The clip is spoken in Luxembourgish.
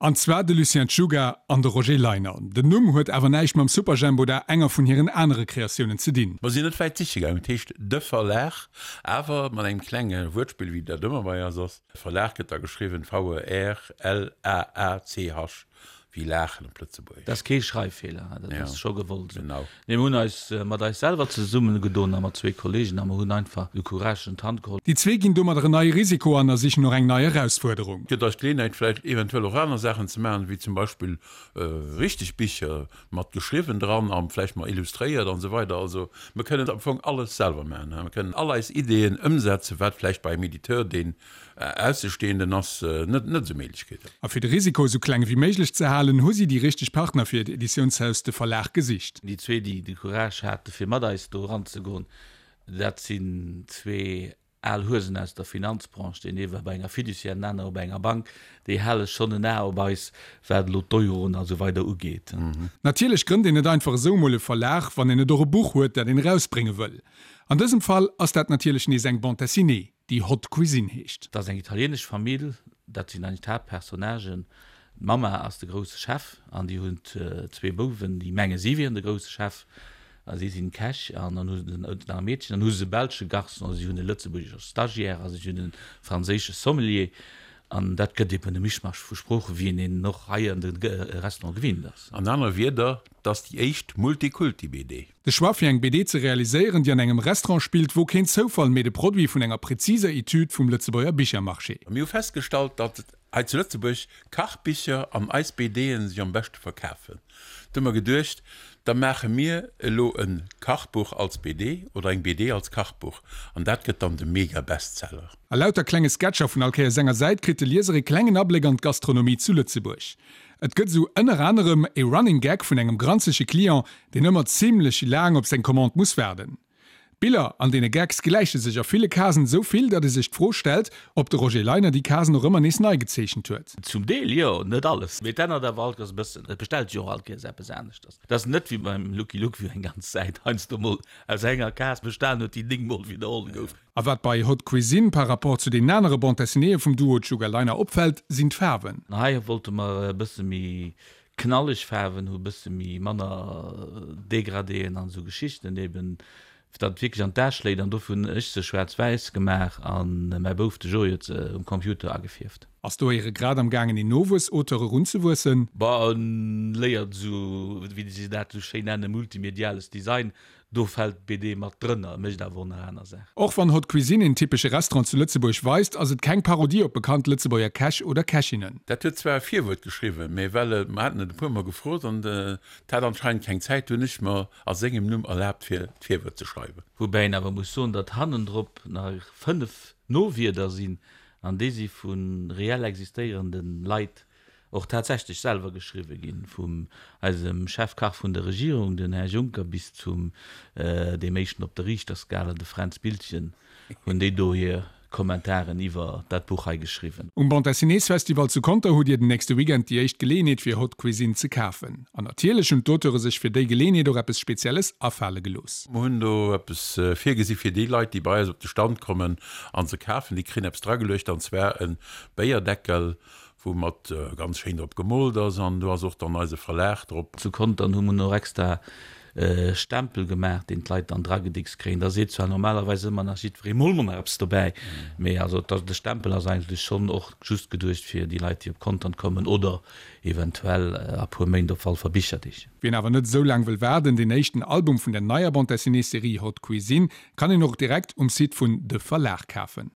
An zwar de Lucien Czuga an de Roger Leiner. Den Numm huet awer näischt mam Superjhemp oder enger vun hiren anere Kreatiounen ze dinn. Mer sinn net wäit siche gaangen. Et heescht De Verlag, awer mat engem klenge Wuertspill, wéi dat ëmmer bei eis ass. Verlag gëtt da geschriwwen V-E-R-L-A-A-C-H. Wéi laachen op Lëtzebuergesch. Dat ass kee Schreiffeeler, dat ass scho gewollt esou. Genau. Nee, mir hunn eis mat eis selwer zesummegedoen a mat zwee Kollegen a mer hunn einfach de Courage un d'Hand geholl. Déi zwee ginn domadder en neie Risiko an a sichen och eng nei Erausfuerderung. Gëtt eis d'Geleeënheit vläicht eventuell och aner Saachen ze maachen, wéi zum Beispill richteg Bicher mat geschriwwen dran a vläicht mar illustréiert an esou weider. Also mir kënnen am Fong alles selwer maachen. Mir kënnen all eis Ideeën ëmsetzen, wat vläicht bei engem Editeur, deen Aussestehenden ass net net esou Méiglechkeeten. A fir de Risiko esou kleng ewéi méiglech ze halen, hu si déi richteg Partner fir hiert Editiounshaus, de Verlag, gesicht. Déi zwee, déi de Courage hate fir mat eis do eranzegoen, dat sinn zwee al Huesen aus der Finanzbranche, deen ee war bei enger Fiduciaire, den anere bei enger Bank, déi hale schonn en A op eis, wat elo d'Euroen a sou weider ugeet. Natierlech grënnt een net einfach esou emol e Verlag, wann een net och e Buch huet, dat een erausbrénge wëll. An dësem Fall ass dat natierlech nees eng Bande dessinée. déi Haute Cuisine heescht. Dat ass eng italienesch Famill, dat sinn eigentlech d'Haaptpersonnagen. D'Mamma ass de grousse Chef an déi hunn zwee Bouwen, déi menge si wieren de grousse Chef a si sinn d'Käch an dann hu se nach e Meedchen. Dann hu se e belsche Garçon, si hunn e lëtzebuergesche Stagiaire a si hunn e franséische Sommelier. An dat gëtt eben e Mischmasch vu Sproochen, wéi een en och hei an de Restaurante gewinnt ass. An aner Wierder, 't ass déi éischt Multikulti-BD. De Choix fir eng BD ze realiséieren, déi an engem Restaurant spillt, wor keen Zoufall, mee de Produit vun enger präziser Etüd vum Lëtzebuerger Bichermarché. Mir hu festgestallt, datt hei zu Lëtzebuerg Kachbicher an eis BDen sech am beschte verkafen. Du hu mer geduecht, da maache mir elo e Kachbuch als BD oder eng BD als Kachbuch an dat gëtt dann de Mega-Bestseller. A lauter klenge Sketcher vun all Kéiers enger Säit kritt de Lieser e klengen Abléck an d'Gastronomie zu Lëtzebuerg. Et gëtt esou ënner anerem e Running Gag vun engem granzege Client, deen ëmmer zimlech laang op seng Commande muss waarden. D'Biller an deene Gags gläiche sech a ville Casen esou vill, datt ee sech d'Fro stellt, ob de Roger Leiner déi Casen och ëmmer nees nei gezeechent huet. Zum Deel jo, net alles, mee et ännert awer all Kéiers e bëssen. Et bestellt sech och all Kéiers eppes aneschters. Et ass net wéi beim Lucky Luke, wou eng ganz Säit heiansdo mol aus enger Case bestan huet, déi 9 mol widderholl gouf. A wat bei Haute Cuisine par rapport zu deenen anere Bande dessinéeë vum Duo Czuga Leiner opfält, sinn d'Faarwen. Hei wollte mer e bësse méi knalleg Faarwen hu, bësse méi manner Degradéen an esou Geschichten eben, fir datt et wierklech an d'A schléit. An dofir hunn ech se schwaarz-wäiss gemaach a mäi Bouf, de Joé, huet se um Computer agefierft. Ass do éiere grad am gaangen een Nowuess-Auteur erunzewuessen? Bah, en léiert esou, wéi se dat esou schéin nennen, multimediales Design. Do fält d'BD mat drënner, mécht awer och nach aner Saachen. Och wann Haute Cuisine een typesche Restaurant zu Lëtzebuerg weist, ass et keng Parodie op bekannt Lëtzebuerger Käch oder Kächinnen. Dat huet zwar e Virwuert geschriwwen, mee well e, mer haten et e puer mol gefrot an et hat anscheinend keng Zäit, hunn ech mer a sengem Numm erlaabt fir d'Virwuert ze schreiwen. Woubäi een awer muss soen, datt hannendrop nach 5 Nowierder sinn, an déi si vu reell existéierende Leit och tatsächlech selwer geschriwwe ginn, vum eisem Chefkach vun der Regierung, den Här Juncker, bis zum deem éischten op der Riichterskala, de Fränz Biltgen, hunn déi do hir Kommentaren iwwer dat Buch hei geschriwwen. Um Bande Dessinées Festival zu Conter hutt Dir den nächste Weekend déi éischt Geleeënheet fir Haute Cuisine ze kafen. An natierlech hunn d'Auteure sech fir déi Geleeënheet och eppes Spezielles afale gelooss. Mer hunn do eppes virgesi fir déi Leit, déi bei eis op de Stand kommen an se kafen. Déi kréien eppes drageluecht, an zwar e Béierdeckel, wou mat ganz schéin drop gemoolt ass an do ass och dann eise Verlag drop. Zu Contern hu mer och extra e Stempel gemaach, deen d'Leit dann dragedickst kréien. Da seet zwar normalerweis ëmmer nach jiddweree, mol mer nach eppes dobäi, mee also de Stempel ass eigentlech schonn och just geduecht fir déi Leit, déi op Contern kommen oder eventuell a puer Méint op Walfer Bicherdeeg. Wien awer net esou laang wëll waarden, deen éischten Album vun der neier Bande-dessinée-Serie Haute Cuisine kann een och direkt um Site vun De Verlag kafen.